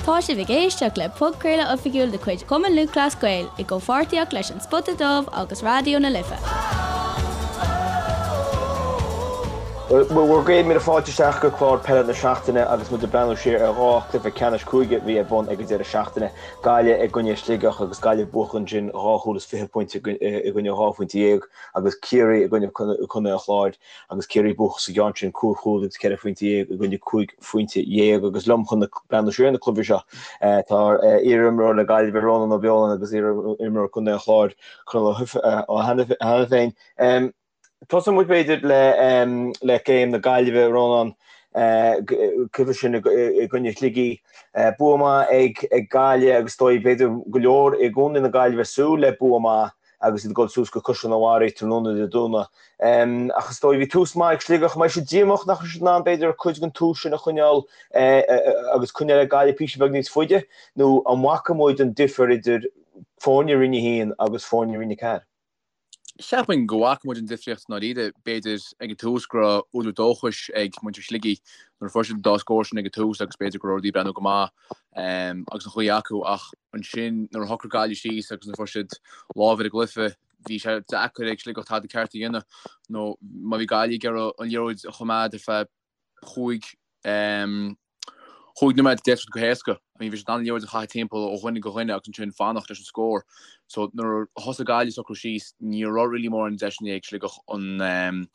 Tá sibh ag éisteacht le podchraoladh oifigiúil de chuid Chumann Lúthchleas Gael i gcomhpháirtíocht leis An Spota Dubh agus Raidió na Life. Bhur gcéad míle fáilte isteach go clár peile na seachtaine agus muid ag breathnú siar ar dhá chluiche ceannais cúige a bhí ar bun ag an deireadh seachtaine. Gaillimh i gcoinne Sligeach agus Gaillimh buachan ansin dhá chúl is 20 pointe i gcoinne dhá phointe dhéag agus Ciarraí i gcoinne Contae an Chláir agus Ciarraí buachan sa gceann sin cúig chúl agus 14 phointe i gcoinne 15 phointe. Agus liom chun breathnú siar ar na cluichí seo tá iarimreoir le Gaillimh Rónán Ó Beoláin agus iarimreoir Contae an Chláir Conall Ó hAiniféin. Tosóidh muid b'fhéidir le le game na Gaillimhe Rónán cluiche sin i gcoinne Shligigh. Bua maith ag Gaillimh agus is dóigh b'fhéidir go leor i gcontae na Gaillimhe ag súil le bua maith agus iad ag dul suas go Caisleán an Bharraigh tráthnóna Dé Domhnaigh. Ach is dóigh, bhí tús maith ag Sligeach. An mbeidh siad díomách nach raibh siad in ann, b'fhéidir, cuid den tús sin a choinneáil agus coinneáil le Gaillimh píosa beag níos faide? Nó an bhfaca muid an difear idir foirne Roinn 1 agus foirne Roinn 4? Cheapfainn go bhfaca muid an difríocht i ndáiríre. B'fhéidir ag an tús go raibh údar dóchais ag muintir Shligigh nuair a fuair siad an dá scór sin ag an tús agus b'fhéidir go raibh rudaí ag breathnú go maith agus an ghaoth acu ach ansin nuair a shocraigh Gaillimh síos agus nuair a fuair siad lámh ar an gcluiche bhí sé deacair ag Sligeach tada ceart a dhéanamh nó má bhí Gaillimh ag iarraidh an liathróid a choimeád ar feadh chúig chúig nóiméad d'fhéadfadh siad go héasca. I mean bhí siad in ann an liathróid a chaitheamh timpeall ó dhuine go dhuine agus ansin fanacht leis an scór. So nuair a thosaigh Gaillimh ag socrú síos ní raibh really mórán deiseanna ag Sligeach an an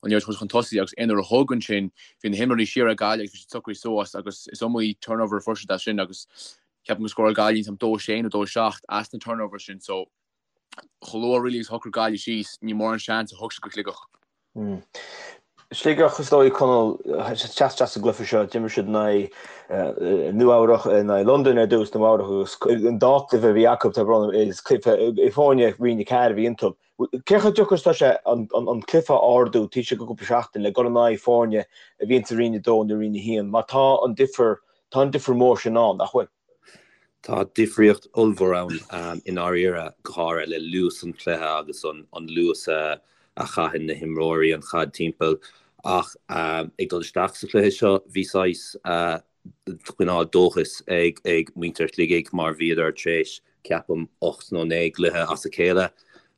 liathróid a thabhairt chun tosaigh agus aon uair a thug ansin bhí na himreoirí siar ag Gaillimh agus bhí siad socraithe suas agus is iomaí turnover a fuair siad as sin agus ceapaim gur scóráil Gaillimh an 2-6 nó 2-7 as na turnovers sin so chomh luath really agus a shocraigh Gaillimh síos, ní mórán seans a thug siad go Sligeach. Sligeach, is dóigh, Conall, teacht isteach sa gcluiche seo, d'imir siad in aghaidh Nua-Eabhrach, in aghaidh Londain ar dtús, Nua-Eabhrach agus an dá chluiche a bhí acu, tá brón orm, is cluiche foirne Roinn 4 a bhí iontu. Cé chomh deacair is atá sé an cluiche a ardú taobh istigh de chúpla seachtain le dul in aghaidh foirne a bhíonn sa Roinn 2 nó Roinn 1 mar tá an difear, tá an difear mór sin ann, nach bhfuil? Tá difríocht ollmhór ann i ndáiríre, go háirithe le luas an chluiche agus an luas a chaitheann na himreoirí an chaid timpeall. Ach ag dul isteach sa chluiche seo, bhí saghas cineál dóchais ag muintir Shligigh mar bhíodar tar éis ceapaim, 8 nó 9 gcluiche as a chéile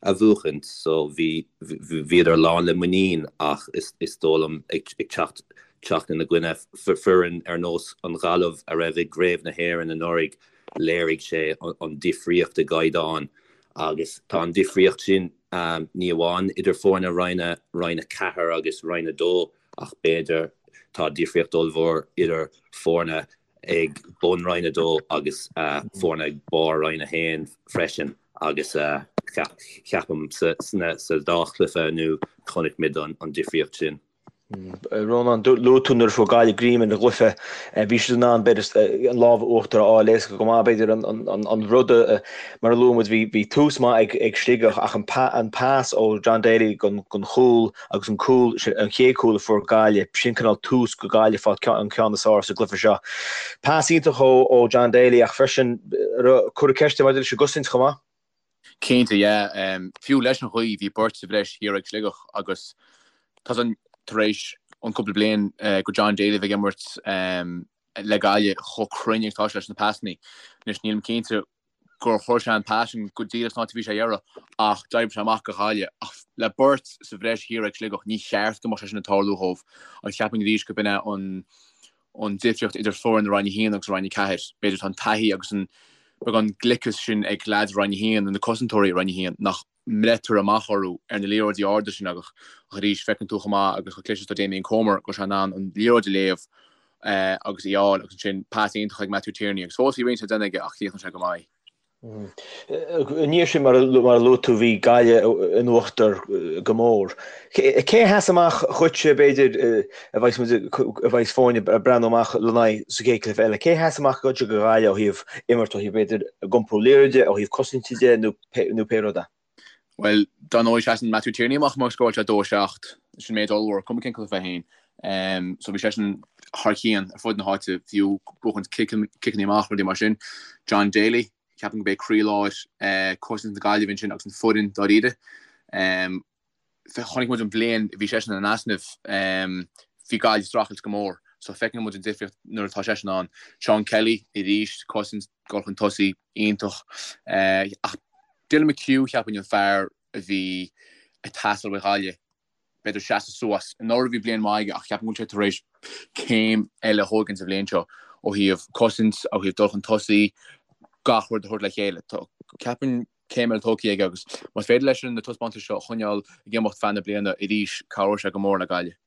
a bhuachaint so bhí, bhíodar lán le muinín ach is dóigh liom ag teacht, teacht ina gcoinne foireann ar nós an Ghaillimh a raibh i gCraobh na hÉireann anuraidh, léirigh sé an difríocht i gcaighdeán agus tá an difríocht sin ní amháin idir foirne Roinn, Roinn 4 agus Roinn 2 ach b'fhéidir tá difríocht ollmhór idir foirne ag bun Roinn 2 agus foirne ag barr Roinn 1 freisin agus ceapaim sa dá chluiche inniu chonaic muid an difríocht sin. Rónán, luaigh tú nuair a fuair Gaillimh greim ar an gcluiche, bhí siad in ann b'fhéidir an lámh uachtar a fháil éasca go maith. B'fhéidir an rud mar a luaigh muid, bhí tús maith ag Sligeach ach an pas ó John Daly don chúl agus an cúl, an chéad chúl a fuair Gaillimh, sin cineál tús go Gaillimh fáil an ceann is fearr sa gcluiche seo. Pas iontach ó John Daly ach freisin cuireadh ceist maidir leis an gcosaint chomh maith. Cinnte, yeah. Fiú leis an ghaoth, bhí beirt sa bhreis thiar ag Sligeach agus tá san tar éis an cúpla bliain go John Daly a bheith ag imirt le Gaillimh chomh cruinn agus atá sé leis na pasannaí. Anois nílim cinnte gur chuir sé an pas sin go díreach san áit a bhí sé a iarraidh ach d'oibrigh sé amach go Ghaillimh. Ach le beirt sa bhreis thiar ag Sligeach, ní cheart go mbeadh sé sin ag tarlú dhóibh agus cheapfainn arís go b'in é an an difríocht idir foireann Roinn 1 agus Roinn 4. B'fhéidir tá an taithí agus an beagán gliceas sin ag leaids Roinn 1 nó na cosantóirí i Roinn 1 nach mbreitear amach orthu ar na liathróidí arda sin ach arís feiceann tú chomh maith agus chomh cliste is atá Damien Comer go bhfuil sé in ann an liathróid a léamh agus í a fháil agus ansin pas iontach ag Matthew Tierney agus fós bhí roinnt le déanamh aige ach chríochnaigh sé go maith. I ndiaidh sin, mar a luaigh tú, bhí Gaillimh in uachtar go mór. Cé a sheas amach dhuitse, b'fhéidir, a bheas muid, a bheas foirne ag breathnú amach lena n-aghaidh sa chéad chluiche eile? Cé a sheas amach dhuitse do Ghaillimh ó thaobh imirt, ó thaobh, b'fhéidir, a gcompú liathróide, ó thaobh cosainte de nó nó pé rud é? Bhuel, dar ndóigh, seasann Matthew Tierney amach mar scóráil sé 2-7, sin méid ollmhór, cuma cén cluiche é féin. So bhí seisean thar cionn ar fud na háite, fiú buachaint ciceanna amach, rudaí mar sin. John Daly, ceapaim gurb é croílár cosaint na Gaillimhe ansin agus an foireann dáiríre. Chonaic muid an bhliain a bhí seisean in easnamh, bhí Gaillimh ag streachailt go mór. So feiceann muid an difríocht nuair atá seisean ann. Seán Kelly arís, cosaint, dul chun tosaigh iontach. Ach Dylan McHugh cheapfainn an fear a bhí ag teastáil ó Ghaillimh b'fhéidir seasamh suas. Anuraidh bhí bliain mhaith aige ach ceapaim go bhfuil sé tar éis céim eile a thógaint sa bhliain seo ó thaobh cosaint, ó thaobh dul chun tosaigh, gach rud a thabhairt le chéile. Ceapaim céim eile tógtha aige agus más féidir leis na taispeántais seo a choinneáil ag imeacht feadh na bliana arís, cabhróidh sé go mór le Gaillimh.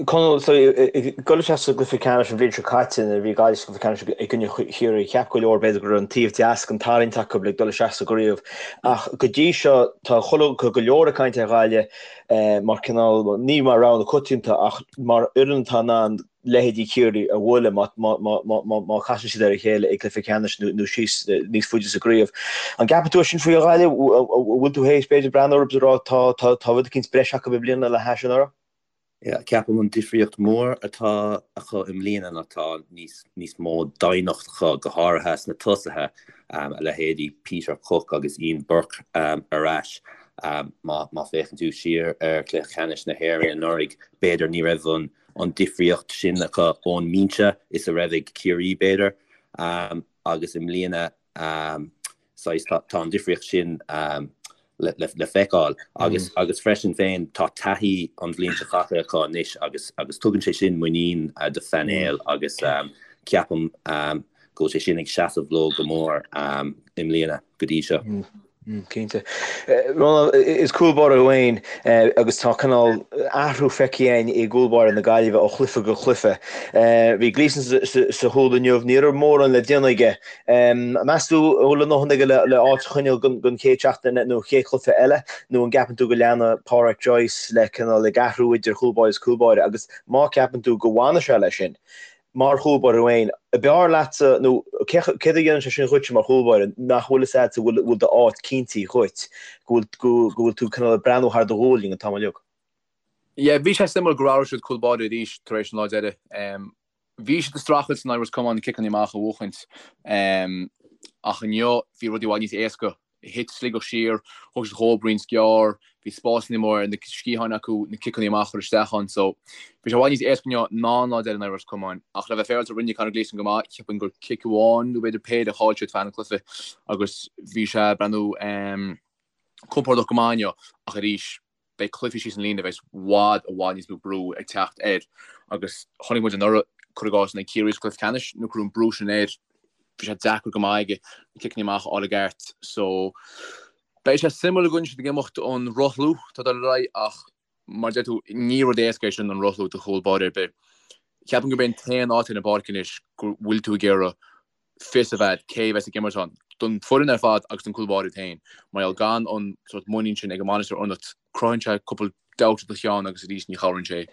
Conall, so ag dul isteach sa gcluiche ceannais an bhliain seo caite nuair a bhí Gaillimh sa gcluiche ceannais i gcoinne Chiarraí, cheap go leor b'fhéidir go raibh an taobh deas den tarraingt acu le dul isteach sa gcraobh. Ach go dtí seo tá chuile, go leor ag caint ar Ghaillimh mar cineál, ní mar rogha na coitianta ach mar fhoireann atá in ann leithéidí Chiarraí a bhualadh má chasann siad ar a chéile i gcluiche ceannais nó síos níos faide sa gcraobh. An gceapann tú é sin faoi Ghaillimh? An bhfuil tú théis b'fhéidir breathnú orthu is a rá tá tá rud eicínt breise acu i mbliana le hais anuraidh? Yeah, ceapaim an difríocht mór atá acu i mbliana ná tá níos níos mó doimhneacht acu, go háirithe sna tosaithe, a leithéidí Peter Cooke agus Ian Burke ar ais. Má má féachann tú siar ar chluiche ceannais na hÉireann anuraidh, b'fhéidir ní raibh an an difríocht sin acu ón mbinse is a raibh ag Ciarraí, b'fhéidir, agus i mbliana saghas tá an difríocht sin le feiceáil agus agus freisin féin tá taithí an bhliain seo caite acu anois agus agus tugann sé sin muinín do phainéal agus ceapaim go bhfuil sé sin ag seasamh leo go mór i mbliana go dtí seo. Cinnte. Rónán, is cúl báire thú féin agus tá cineál athrú feicthe againn i gcúl báire na Gaillimhe ó chluiche go cluiche. Bhí Gleeson sa chúl inniu, ní raibh mórán le déanamh aige. Meas tú an bhfuil a ndóthain aige le áit a choinneáil don chéad seachtain nó chéad chluiche eile nó an gceapann tú go leanfaidh Pádraic Joyce le cineál ag athrú idir chúl báire is cúl báire agus má ceapann tú go bhfanfaidh sé leis sin, Mar chúl báire féin, ab fhearr leatsa, nó céard a dhéanann sé sin dhuitse mar chúl báire, nach bhfuil fhios agat go bhfuil d'áit cinntithe dhuit, go bhfuil tú cineál ag breathnú thar do ghualainn an t-am uilig? Yeah, bhí sé suimiúil gur athraigh siad cúl báire arís tar éis an lá deiridh. Bhí siad ag streachailt in aghaidh Ros Comáin na ciceanna amach a bhuachaint ach inniu bhí rudaí i bhfad níos éasca Thit Sligeach siar, thug siad dhóibh roinnt gearr, bhí spásanna móra ar na sciatháin acu na ciceanna amach a chur isteach ann so bhí sé i bhfad níos éasca inniu ná an lá deiridh in aghaidh Ros Comáin. Ach le bheith féaráilte rinne Conor Gleeson go maith, cheapfainn gur cic amháin nó b'fhéidir péire a chaill siad feadh an chluiche agus bhí sé ag breathnú compordach go maith inniu ach arís beidh cluichí síos an líne a bheas i bhfad, i bhfad níos mó brú ag teacht air agus chonaic muid anuraidh, cuir i gcás, in aghaidh Ciarraí sa chluiche ceannais nuair a cuireadh an brú sin air, bhí sé deacair go maith aige na ciceanna amach a fháil i gceart. So, beidh sé suimiúil an gcoinneoidh siad ag imeacht an rothlú atá ag dul ar aghaidh ach mar a deir tú, ní rud éasca é sin an rothlú do chúl báire ar bith. Ceapaim gurb é an t-aon áit ar an bpáirc anois go bhfuil tú ag iarraidh fios a bheith cé a bheas ag imirt ann, don foireann ar fad agus don cúl báire féin. Mar gheall gan an sórt muinín sin ag an mbainisteoir ionat, cruthaíonn sé cúpla doubt i do cheann agus arís ní chabhraíonn sé.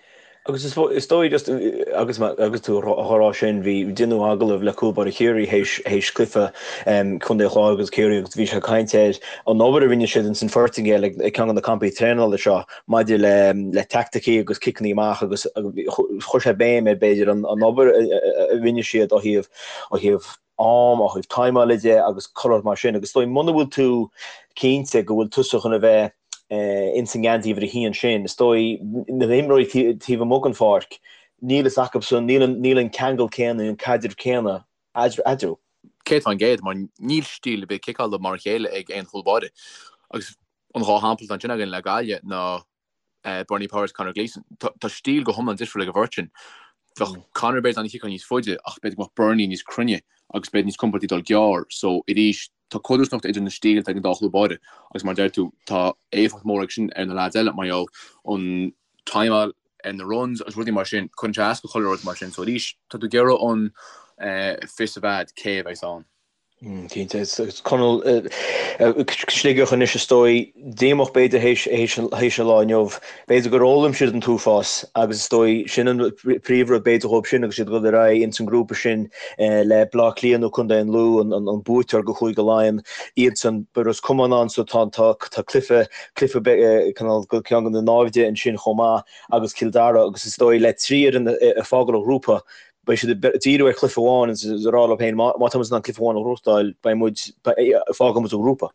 Agus is dóigh just agus agus tú á rá sin, bhí deineadh agallamh le cúl báire Chiarraí théis théis cluiche Contae an Chláir agus Ciarraí agus bhí sé ag caint ar an obair a rinne siad ins an Phortaingéil ag ceann de na campaí traenála seo maidir le le teaicticí agus ciceanna amach agus chuir sé béim ar b'fhéidir an obair a rinne siad ó thaobh ó thaobh am, ó thaobh timeála de agus chuile shórt mar sin. Agus is dóigh muna bhfuil tú cinnte go bhfuil tusa chun a bheith ins an ngeansaí uimhir a haon sin, is dóigh na himreoirí taobh amuigh den pháirc, níl fhios acusan, níl an ceangal céanna, an caidreamh céanna eadarthu. 100% mar níl stíl ar bith ciceála mar a chéile ag aon chúl báire. Agus an dhá shampla atá ansin againn le Gaillimh ná Bernie Powers, Conor Gleeson. Tá stíl go hiomlán difriúil ag an bheirt sin. Bheadh Conor b'fhéidir in ann ciceáil níos faide ach b'fhéidir go mbeadh Bernie níos cruinne agus b'fhéidir níos compordaí dul gearr. So arís tá codarsnacht idir na stíleanna ag an dá chúl báire agus mar a deir tú tá éifeacht mhór ag sin ar na leaids eile mar gheall an timeáil ar na runs agus rudaí mar sin, cuireann sé as go chuile rud mar sin. So arís tá tú ag iarraidh an fios a bheith agat cé a bheas ann. Cinnte. Conall, Sligeach anois is dóigh, díomách b'fhéidir théis an lá inniu. B'fhéidir gur fhoghlaim siad an t-uafás agus is dóigh sin an príomhrud b'fhéidir dhóibh sin agus iad ag dul ar aghaidh ins an ngrúpa sin le Bleá Cliath nó Contae an Lú, an buaiteoir go Chúige Laighean, iadsan. Beidh Ros Comáin ann so tá cluiche, cluiche cineál ceann de na naimhde ansin chomh maith agus Cill Dara agus is dóigh le trí fhoireann ag fágáil an ghrúpa, Beidh siad ag díriú ar chluiche amháin agus ag rá leo féin, má tá muid in ann cluiche amháin a ghnóthachtáil, beidh muid, fágfaidh muid an grúpa.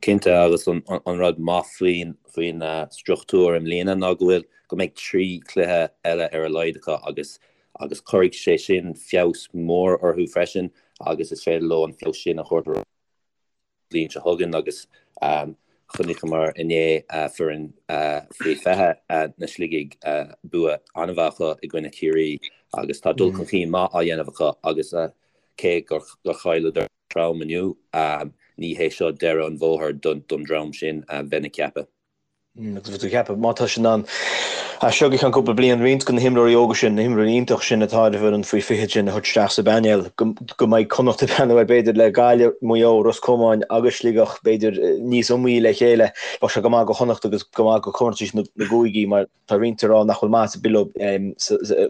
Cinnte, agus an rud maith faoin faoin struchtúr i mbliana ná go bhfuil, go mbeidh 3 chluiche eile ar a laghad acu agus agus cuirfidh sé sin feabhas mór orthu freisin agus is féidir leo an feabhas sin a thabhairt ar an bhliain seo chugainn agus chonaiceamar inné foireann faoi 20 na Sligigh bua an-mhaith acu i gcoinne Chiarraí agus tá dul chun cinn maith á dhéanamh acu agus cé gur chailleadar trom inniu. Ní hé seo deireadh an bhóthair don dream sin, bheinn ag ceapadh. Agus bheinn ag ceapadh, má tá siad in ann as seo go ceann cúpla bliain, roinnt de na himreoirí óga sin, na himreoirí iontach sin atá ar an bhfoireann faoi 20 sin a thabhairt isteach sa bpainéal, go mbeidh Connacht ag breathnú air b'fhéidir le Gaillimh, Maigh Eo, Ros Comáin agus Sligeach b'fhéidir níos iomaí le chéile. Bheadh sé go maith do Chonnacht agus go maith do chomórtais na gcúigí mar Tá roinnt ag rá nach bhfuil maitheas ar bith leo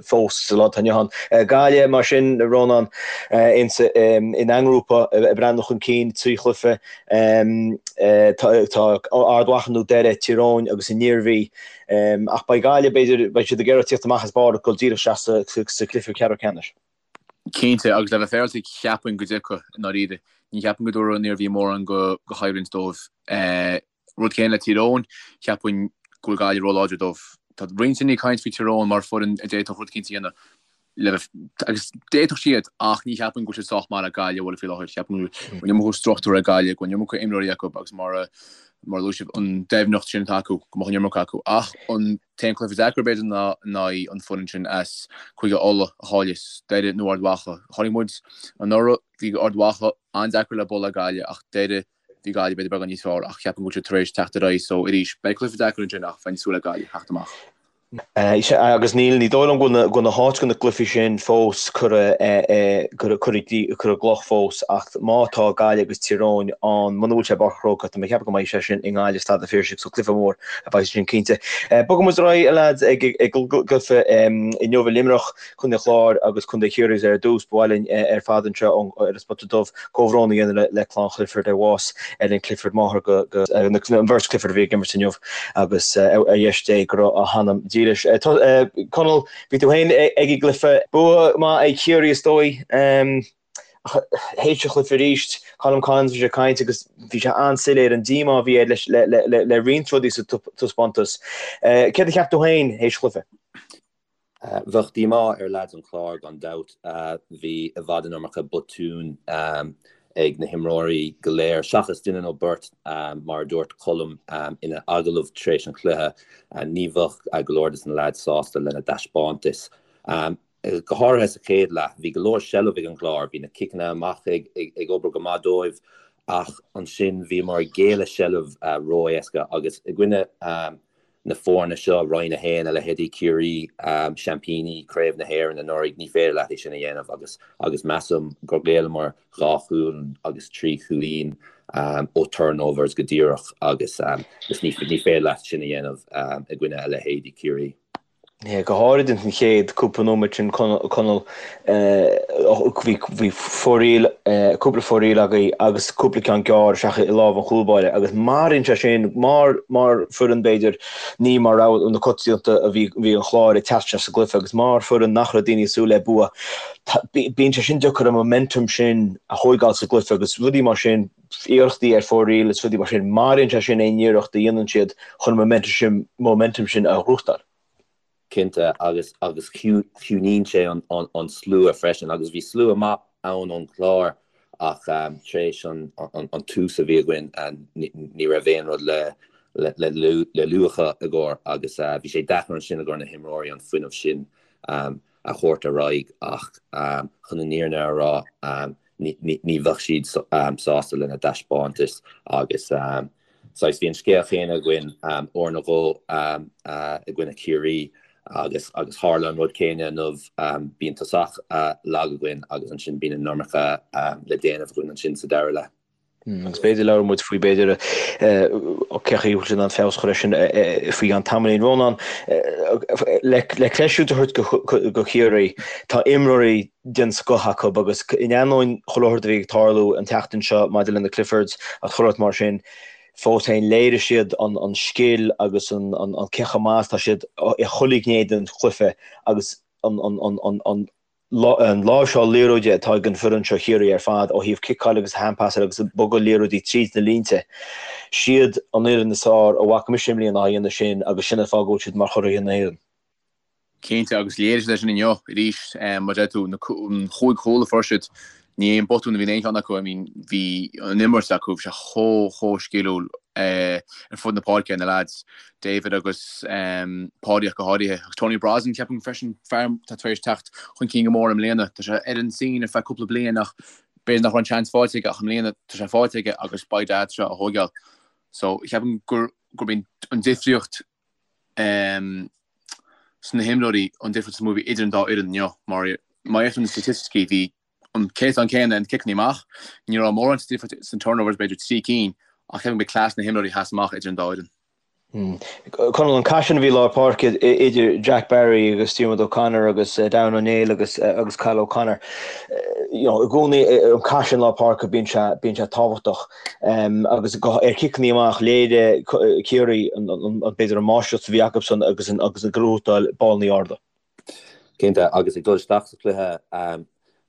fós sa lá atá inniu ann. Gaillimh, mar sin, a Rónán, ina ngrúpa ag breathnú chun cinn, 3 chluiche, tá Ard Mhacha nó Doire, Tír Eoghain agus an Iarmhí. Ach beidh Gaillimh, b'fhéidir, beidh siad ag iarraidh tíocht amach as barr ag dul díreach isteach sa chluiche ceathrú ceannais. Cinnte, agus le bheith féaráilte, cheapfainn go dtiocfaidh, i ndáiríre. Ní cheapaim go dtabharfaidh an Iarmhí mórán de choimhlint dóibh. Rud céanna le Tír Eoghain, cheapfainn go bhfuil Gaillimh róláidir dóibh. Tá roinnt daoine ag caint faoi Tír Eoghain mar foireann a d'fhéadfadh rud eicínt a dhéanamh le bheith, agus d'fhéadfadh siad ach ní cheapaim go bhfuil siad sách maith le Gaillimh a bhualadh faoi láthair. Ceapaim go bhfuil an iomarca struchtúr ag Gaillimh, go bhfuil an iomarca imreoirí acu agus mar a mar a luaigh sibh, an doimhneacht sin atá acu, go mbeadh an iomarca acu. Ach an t-aon cluiche deacair b'fhéidir ná in aghaidh an foireann sin as Cúige Uladh a chaillfeas, Doire nó Ard Mhacha. Chonaic muid anuraidh, bhí Ard Mhacha an-deacair le bualadh ag Gaillimh ach Doire, Bhí Gaillimh b'fhéidir beagán níos fearr ach ceapaim go bhfuil siad tar éis teacht ar aghaidh so arís beidh cluiche deacair ansin ach bheinn ag súil le Gaillimh theacht amach. Sea, agus níl, ní dóigh liom go bhfuil na háit do na gcluichí sin fós curtha i gcloch fós ach má tá Gaillimh agus Tír Eoghain ann, muna bhfuil sé i bPáirc an Chrócaigh, tá mé ag ceapadh go mbeidh sé sin i nGaillimh, Staid an Phiarsaigh, so cluiche mór a bheidh sin cinnte. Bogfaidh muid ar aghaidh, a leaids, ag an gcluiche inniu i Luimneach. Contae an Chláir agus Contae Chiarraí ar dtús. Ba mhaith linn ar fad anseo ar an Spota Dubh comhbhrón a dhéanamh le clann Chliford ar bhás Ellen Clifford, máthair go an bheirt Clifford a bhí ag imirt inniu agus ar dheis Dé go raibh a hanam dílis. Conall, bhí tú féin ag an gcluiche. Bua maith ag Ciarraí is dóigh. Ach théis an chluiche arís, Colm Collins bhí sé ag caint agus bhí sé an-soiléir an díomá a bhí air le roinnt rudaí sa taispeántas. Céard a cheap tú féin théis an chluiche? Bheadh díomá ar leaids an Chláir gan dabht. Bhí i bhfad an iomarca botún ag na himreoirí go léir, seachas duine nó beirt, mar a dúirt Colm ina agallamh tar éis an chluiche. Ní bheadh go leor de na leaids sásta lena dtaispeántas. Go háirithe sa chéad leath, bhí go leor seilbh ag an gClár, bhí na ciceanna amach ag obair go maith dóibh ach ansin bhíomar ag géilleadh seilbh ró-éasca agus i gcoinne na foirne seo, Roinn 1, a leithéidí Ciarraí, seaimpíní Craobh na hÉireann anuraidh, ní féidir leat é sin a dhéanamh agus agus measaim gur ghéilleamar dhá chúl agus trí chúilín ó turnovers go díreach agus ní féidir leat sin a dhéanamh i gcoinne a leithéidí Ciarraí. Go háirid ins an chéad cúpla nóiméad sin Conall, bhí foraíl, cúpla foraíl agaibh agus cúpla ceann gearr isteach i lámh an chúlbáire agus maraíonn sé sin mar mar foireann b'fhéidir ní mar rogha na coitianta a bhí bhí an Chláir ag teacht isteach sa gcluiche agus mar foireann nach raibh daoine ag súil le bua bíonn sé sin deacair an momentum sin a thóigeáil sa gcluiche agus rudaí mar sin iarrachtaí ar foraíl is rudaí mar sin, maraíonn sé sin aon iarracht a dhéanann siad chun an momentum sin a ghnóthachtáil. Cinnte, agus agus ciúnaíonn sé an slua freisin, agus bhí slua maith ann ón gClár ach tar éis an tús a bhí againn ní raibh aon rud le le luachan i gcomhair agus bhí sé deacair ansin i gcomhair na himreoirí an fuinneamh sin a thabhairt ar aghaidh ach chun an fhírinne a rá ní bheadh siad sásta lena dtaispeántas agus saghas bhí an scéal chéanna againn uair nó dhó i gcoinne Chiarraí agus agus tharla an rud céanna inniu, bíonn tosach lag againn agus ansin bíonn an iomarca le déanamh againn ansin sa dara leath. Agus b'fhéidir labhróidh muid faoi b'fhéidir cén chaoi a bhfuil siad in ann feabhas a chur air sin faoi cheann tamaillín. Rónán, le creidmheas a thabhairt do Chiarraí, tá imreoirí den scoth acu agus in ainneoin chuile shórt a bhí ag tarlú an tseachtain seo maidir le na Cliffords agus chuile shórt mar sin, fós féin léirigh siad an scil agus an cé chomh maith is atá siad i chuile ghné den chluiche agus an. An láimhseáil liathróide atá ag an bhfoireann seo Chiarraí ar fad ó thaobh ciceáil agus hand-passáil agus bogadh liathróidí tríd na línte. Siad an fhoireann is fearr a bhfaca mise i mbliana á dhéanamh sin agus sin an fáth go bhfuil siad mar churaidh na hÉireann. Cinnte, agus léirigh siad é sin inniu arís. Mar a deir tú, an chúig chúl a fuair siad, ní aon botún a bhí in aon cheann acu. I mean, bhí an imirt acu, bhí sé chomh, chomh sciliúil ar fud na páirce, na lads, David agus Páidí ach go háirithe. Agus Tony Brosnan, ceapaim freisin, fear atá tar éis teacht chun cinn go mór i mbliana. Tá sé ar an scene ar feadh cúpla bliain ach b'fhéidir nach raibh an seans faighte aige ach i mbliana tá sé faighte aige agus by dad tá sé á thóigeáil. So, ceapaim gur, gurb í an difríocht sna himreoirí an difríocht is mó a bhí idir an dá fhoireann inniu mar má fhéachann tú na staitisticí bhí an céatadán céanna ar na ciceanna amach, ní raibh mórán difríocht sna turnovers, b'fhéidir 3 cinn, ach ceapaim gurb é cleas na himreoirí a sheas amach idir an dá fhoireann. Conall, an cath sin a bhí i lár páirce idir Jack Barry agus Diarmuid O'Connor agus Darren O'Neill agus agus Cathal O'Connor, you know, i gcónaí an cath sin i lár páirce bíonn sé bíonn sé tábhachtach agus ar chiceanna amach léirigh Ciarraí an b'fhéidir an máistreacht a bhí acusan agus an agus an gnóthachtáil ballanna arda. Cinnte, agus ag dul isteach sa chluiche,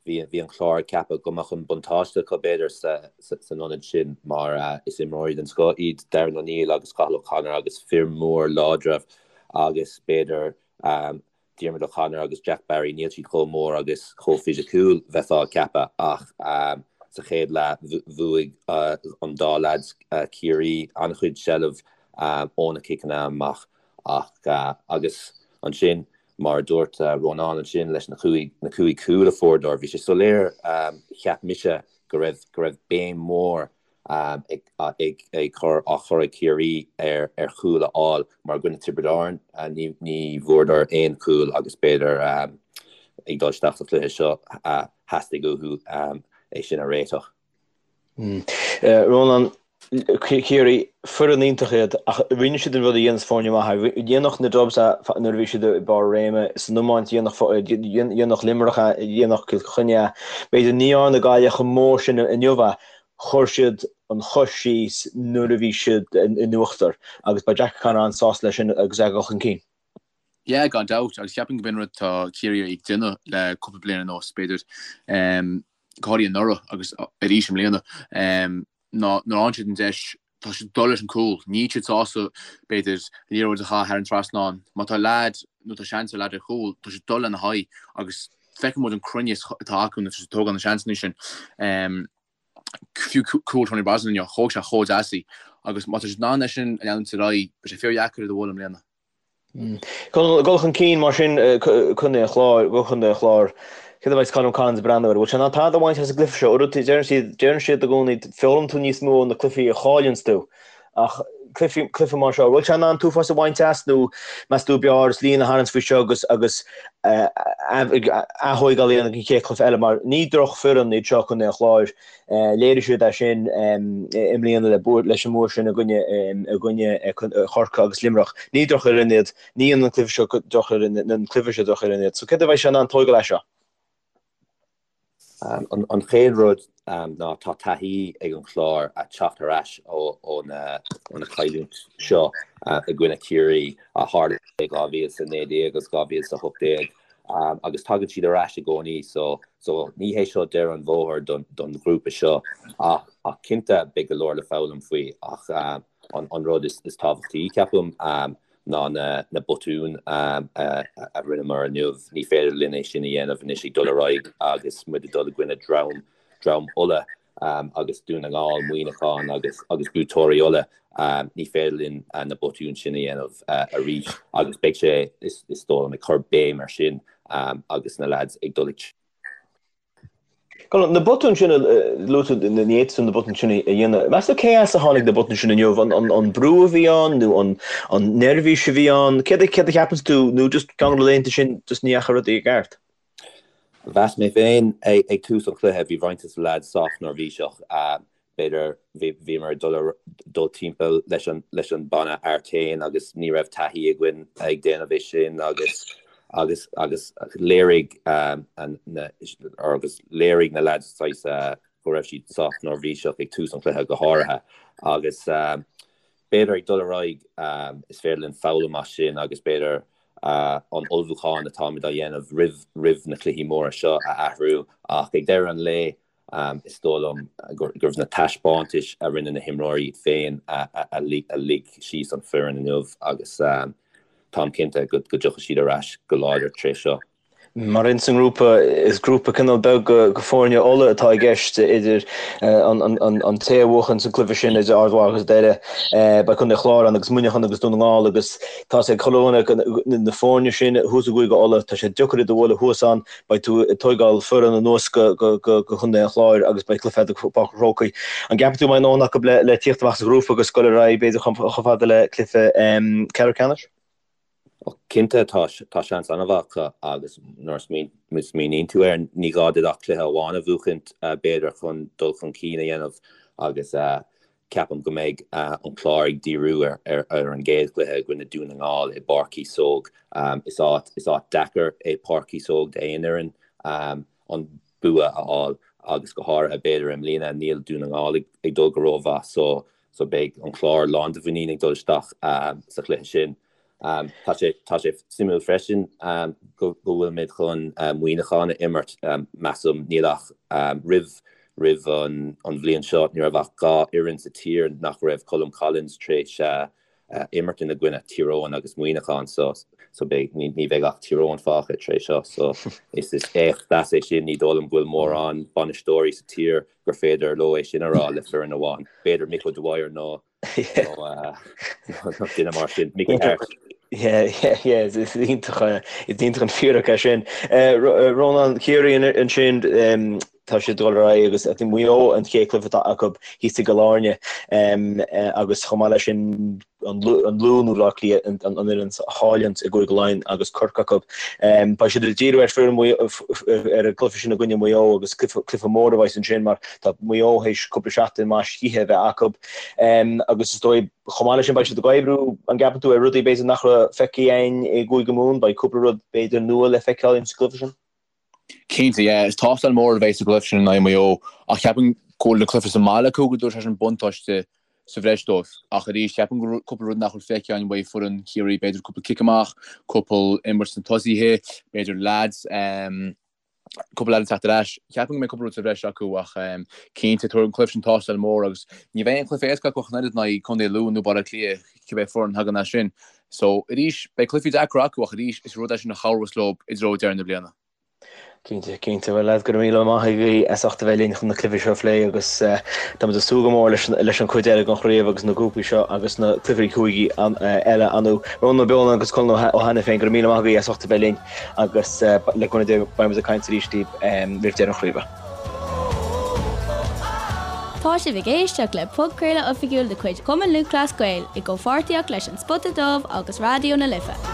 bhí bhí an Clár ag ceapadh go mbeadh an buntáiste acu b'fhéidir san ionad sin mar is imreoirí den scoth iad Darren O'Neill agus Cathal O'Connor agus fir mór láidre agus b'fhéidir Diarmuid O'Connor agus Jack Barry níl siad chomh mór agus chomh fisiciúil bheifeá ag ceapadh ach sa chéad leath bhuaigh an dá leaids Ciarraí an-chuid seilbh ó na ciceanna amach. Ach, agus ansin, mar a dúirt Rónán ansin, leis na cúig, na cúig chúl a fuaireadar, bhí sé soiléir, cheap mise, go raibh, go raibh béim mhór ag, ag, ag cur, á chur ag Ciarraí ar, ar chúl a fháil, mar i gcoinne Tiobraid Árann, ní, ní bhfuaireadar aon chúl agus b'fhéidir, ag dul isteach sa chluiche seo, theastaigh uathu é sin a réiteach. Rónán, Ciarraí, foireann iontach iad ach rinne siad an rud a dhéanas foirne maithe. Dhéanfadh na Dubs é nuair a bhí siad i mbarr a réime san iomáint, dhéanfadh Luimneach é, dhéanfadh Cill Chainnigh é. B'fhéidir ní dhearna Gaillimh chomh mór sin inniu é, chuir siad an chois síos nuair a bhí siad in uachtar agus beidh Jack O'Connor an-sásta leis sin agus é ag dul chun cinn. Yeah, gan dabht, agus ceapaim go b'in rud atá Ciarraí ag déanamh le cúpla bliain anuas, b'fhéidir. go háirithe anuraidh agus arís i mbliana, ná nuair a fhaigheann siad an deis, tá siad ag dul leis an gcúl. Níl siad sásta, b'fhéidir, liathróid a chaitheamh thar an trasnán. Má tá leaid nó tá seans ar leaid ar chúl, tá siad ag dul lena haghaidh agus feiceann muid an cruinneas atá acu nuair atá siad ag tógáil na seansanna sin. Fiú cúl Tony Brosnan inniu, thóg sé chomh deas í agus má tá siad in ann é sin a leanúint ar aghaidh, beidh sé fíordheacair iad a bhualadh i mbliana. Dul chun cinn mar sin, Contae an Chláir, go Contae an Chláir. Céard a bheidh Colm Collins ag breathnú air? Bhfuil sé in ann tada a bhaint as an gcluiche seo? Uaireanta deireann siad, deireann siad i gcónaí, foghlaimíonn tú níos mó ó na cluichí a chailleanns tú. Ach cluiche, cluiche mar seo, bhfuil sé in ann an t-uafás a bhaint as nó meas tú b'fhearr líne a tharraingt faoi seo agus, agus aththóigeáil a dhéanamh don chéad chluiche eile mar ní drochfhoireann iad seo Contae an Chláir. Léirigh siad é sin i mbliana leis an mbua sin i gcoinne Chorcaí agus Luimneach. Ní drochfhoireann iad, ní dhéanann an cluiche seo drochfhoireann, an cluiche seo drochfhoireann iad. So céard a bheidh sé in ann tóigeáil as seo? An chéad rud ná tá taithí ag an Chlár a teacht ar ais ó na cailliúint seo i gcoinne Chiarraí a tharla i 2019 agus 2018. agus tagann siad ar ais i gcónaí so so ní hé seo deireadh an bhóthair don don ghrúpa seo ach ach cinnte beidh go leor le foghlaim faoi ach an an rud is is tábhachtaí ceapaim ná na na botúin a a rinneamar inniu ní féidir linn é sin a dhéanamh anois ag dul ar aghaidh agus muid ag dul i gcoinne dream dream Uladh agus Dún na nGall, Muineachán agus agus buaiteoirí Uladh, ní féidir linn na botúin sin a dhéanamh arís agus beidh sé, is dóigh liom, ag cur béim ar sin agus na leaids ag dul ag. Na botúin sin a luaigh tú, ní fhéadfaí na botúin sin a dhéanamh. Meas tú cé as a tháinig na botúin sin inniu? An brú a bhí ann nó an neirbhís a bhí ann? Céard a cheapanns tú nó just ceann de na laethanta sin just ní dheachaigh rudaí i gceart? Mheas mé féin ag tús an chluiche, bhí roinnt de na leaids sách neirbhíseach. B'fhéidir bhíomar ag dul dul timpeall leis an leis an banna Artane agus ní raibh taithí againn ag déanamh é sin agus agus agus léirigh na agus léirigh na leaids saghas go raibh siad sách neirbhíseach ag tús an chluiche go háirithe agus b'fhéidir ag dul ar aghaidh is féidir linn foghlaim as sin agus b'fhéidir. an ullmhúchán atáimid á dhéanamh roimh roimh na cluichí móra seo a athrú ach ag deireadh an lae is dóigh liom gurbh na taispeántais a rinne na himreoirí iad féin a lig síos an foireann inniu agus táim cinnte go dtiocfaidh siad ar ais go láidir tar éis seo. Mar ins an ngrúpa, is grúpa cineál beag de foirne Uladh atá i gceist idir an té a bhuachann sa gcluiche sin idir Ard Mhacha agus Doire, beidh Contae an Chláir ann agus Muineachán agus Dún na nGall agus tá sé ag chuile dhuine na foirne sin thuas i gCúige Uladh, tá sé deacair iad a bhualadh thuas ann, beidh tú ag tóigeáil foireann anuas go Contae an Chláir agus beidh cluiche agat i bPáirc an Chrócaigh. An gceapann tú go mbeidh a ndóthain acu le tíocht amach as an ghrúpa agus dul ar aghaidh b'fhéidir chomh fada le cluiche ceathrú ceannais? Cinnte, tá seans an-mhaith acu agus nuair a smaoiníonn tú air, ní gá duit ach cluiche amháin a bhuachaint, b'fhéidir, chun dul chun cinn a dhéanamh agus ceapaim go mbeidh an Clár ag díriú ar an gcéad chluiche i gcoinne Dún na nGall i bPáirc Chíosóg. Is áit is áit deacair é Páirc Chíosóg d'aon fhoireann an bua a fháil agus go háirithe b'fhéidir i mbliana níl Dún na nGall ag dul go rómhaith so so beidh an Clár lán de mhuinín ag dul isteach sa chluiche sin. Tá sé tá sé suimiúil freisin go go bhfuilimid chun Muineachán a imirt. Measaim níl ach roimh roimh an an bhliain seo ní raibh ach 2 fhoireann sa tír nach raibh Colm Collins tar éis imirt ina gcoinne, Tír Eoghain agus Muineachán so so beidh ní ní bheidh ach Tír Eoghain fágtha tar éis seo so is is éacht deas é sin. Ní dóigh liom go bhfuil mórán bainisteoirí sa tír gur féidir leo é sin a rá le foireann amháin. B'fhéidir Mick O'Dwyer nó nó duine mar sin, Mickey Harte. Yeah, yeah, yeah, is iontach is iontach an fíric é sin. Rónán, Ciarraí ansin, tá siad ag dul ar aghaidh agus I think Maigh Eo an chéad chluiche atá acu thíos i gCill Airne agus chomh maith leis sin an Lú nó Bleá Cliath an fhoireann a chailleann i gCúige Laighean agus Corcaigh acu. Beidh siad ag díriú ar foireann ar an gcluiche sin i gcoinne Mhaigh Eo agus cluiche mór a bheas ansin mar tá Maigh Eo théis cúpla seachtain maith scíthe a bheith acu agus is dóigh chomh maith leis sin beidh siad ag oibriú, an gceapann tú, ar rudaí b'fhéidir nach raibh feicthe againn i gCúige Mumhan, beidh cúpla rud b'fhéidir nua le feiceáil ins an gcluiche sin? Cinnte, yeah. Is tástáil mór a bheidh sa gcluiche sin in aghaidh Mhaigh Eo ach ceapaim go bhfuil an cluiche sa mbaile acu go dtabharfaidh sé sin buntáiste sa bhreis dóibh. Ach arís, ceapaim go bhfuil cúpla rud nach bhfuil feicthe againn uaidh foireann Chiarraí, b'fhéidir cúpla cic amach, cúpla imirt sna tosaithe, b'fhéidir leaids, cúpla leaid ag teacht ar ais. Ceapaim go mbeidh cúpla rud sa bhreis acu ach cinnte, tabharfaidh an cluiche sin tástáil mór agus ní bheidh aon chluiche éasca acu ach an oiread in aghaidh Contae Lú nó Baile Átha Cliath, cibé foireann a thagann as sin. So, arís, beidh cluichí deacra acu ach arís, is rud é sin a chabhrós leo i dtreo deireadh na bliana. Cinnte, cinnte. Bhuel, lads, go raibh míle maith agaibh as ucht a bheith linn chun na cluichí seo a phlé agus táimid ag súil go mór leis leis an chuid eile den chraobh agus na grúpaí seo agus na cluichí cúigí eile ann. Rónán Ó Beoláin agus Colin Ó hAiniféin, go raibh míle maith agaibh as ucht a bheith linn agus le cúnamh Dé beidh muid ag caint arís libh roimh deireadh an chraoibhe. Tá sibh ag éisteacht le podchraoladh oifigiúil de chuid Chumann Lúthchleas Gael i gcomhpháirtíocht leis An Spota Dubh agus Raidió na Life.